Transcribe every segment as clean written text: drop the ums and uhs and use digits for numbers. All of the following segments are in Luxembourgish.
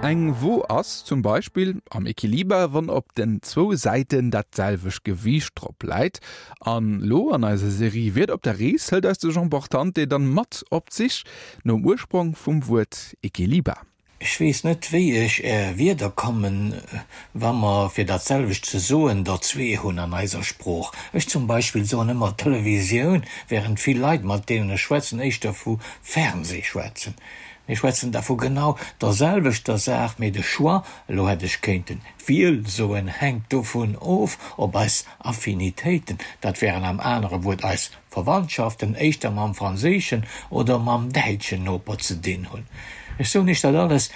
Eng Wo ass zum Beispill am Equiliber, wann op den zwou Säiten dat selwecht Gewiicht drop läit. An lo an eiser Serie Wierder op der Rees hëlt eis de Jean Portante dann mat op d'Sich nom Ursprong vum Wuert Equiliber. Ech weess net, wéi ech Är Wierder kommen, wa mer, fir dat selwecht ze soen, der zwee hunn an eiser Sprooch. Ech zum Beispill soen ëmmer Televisioun, während vill Leit, mat deenen ech schwätzen, éischter vu Fernseh schwätzen. Mir schwätzen da vu genau der selwechter Saach, mee de Choix, elo hätt ech kéinten d'Wiel soen, hänkt dovun of, ob eis Affinitéiten, dat wären am anere Wuert eis Verwandtschaften éischter mam franséischen oder mam däitschen Noper ze dinn hunn. Ech soen Iech dat alles,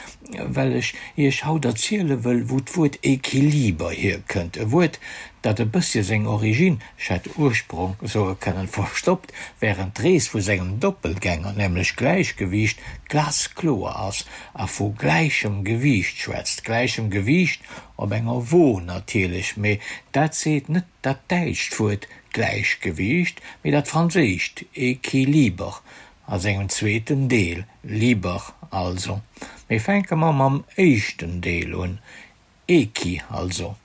well ech Iech haut erziele wëll, wou d'Wuert Equiliber hierkënnt, e Wuert, dat e bëssche seng Origine, ech hätt Ursprong soe kënnen, verstoppt, wärend d'Rees vu sengem Doppelgänger, nämlech Gläichgewiicht, glaskloer ass a vu gläichem Gewiicht schwätzt, gläichem Gewiicht op enger Wo natierlech, mee dat seet net dat däitscht Wuert Gläichgewiicht, mee dat franséischt Équilibre a sengem zweeten Deel, liber also. Mee fänke mer mam éischten Deel un, équi also.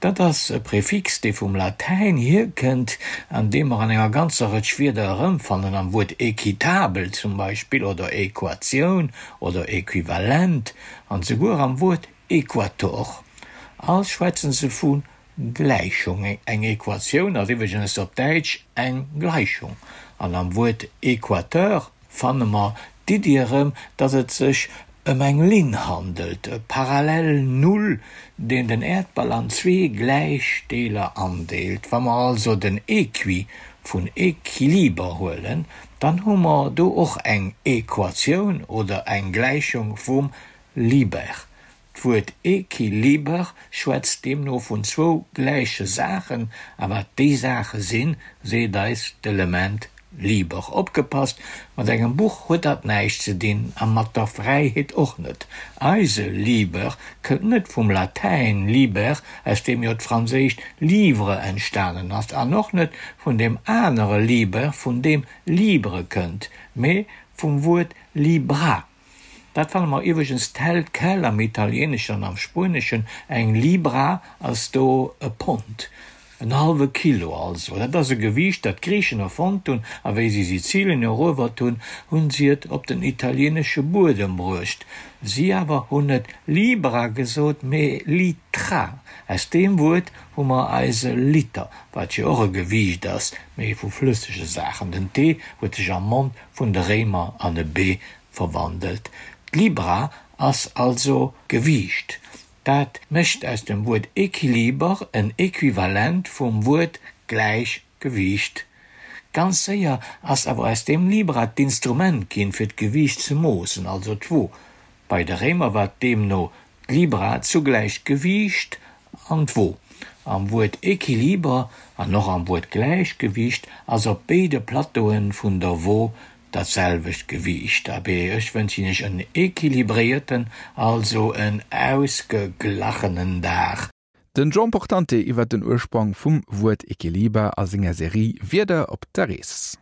Dat ass e Prefix, dee vum Latäin hierkënnt an dee mer an enger ganzer Rëtsch Wierder erëmfannen, am Wuert équitabel zum Beispill oder Equatioun oder Equivalent an souguer am Wuert Equator. All schwätze se vu Gläichung. Eng Equatioun ass iwwregens op Däitsch eng Gleichung. An am Wuert Equateur fanne mer d'Iddi erëm, datt et sech ëm eng Linn handelt, e parallel Null, deen den Äerdball an zwee gläich Deeler andeelt. Wa mer also den Equi vun Equiliber huelen, dann hu mer do och eng Equatioun oder eng Gläichung vum Liber. D'Wuert Equiliber schwätzt deemno vun zwou gläiche Saachen, a wat déi Saache sinn, seet eis d'Element liber. Opgepasst, mat engem Buch huet dat näischt ze dinn, a mat der Fräiheet och net. Eise liber kënnt net vum Latäin liber, aus deem jo d'franséischt livre entstanen ass, an och net vun deem anere liber, vun deem libre kënnt, mee vum Wuert libra. Dat fanne mer iwwregens tel quel am Italieeneschen an am Spueneschen, eng Libra ass do e Pond, en hallwe Kilo also. Dat ass e Gewiicht, dat d'Griichen erfonnt hunn, a wéi si Sizilien eruewert hunn, hunn si et op den italieenesche Buedem bruecht. Si awer hunn net Libra gesot, mee Litra. Aus deem Wuert hu mer eise Liter, wat jo och e Gewiicht ass, mee vu flëssege Saachen. Den T huet sech am Mond vun de Réimer an e B verwandelt. D'Libra ass also Gewiicht. Dat mécht aus dem Wuert Equiliber en Equivalent vum Wuert Gläichgewiicht. Ganz séier ass awer aus deem Libra d'Instrument ginn, fir d'Gewiicht ze moossen, also d'Wo. Bei de Réimer war deemno d'Libra zugläich d'Gewiicht an d'Wo. Am Wuert Equiliber an och am Wuert Gläichgewiicht ass op béide Plateaue vun der Wo dat selwecht Gewiicht. Abee, ech wënschen Iech en equilibréierten, also en ausgeglachenen Dag. Den Jean Portante iwwer den Ursprong vum Wuert Equiliber a senger Serie Wierder op der Rees.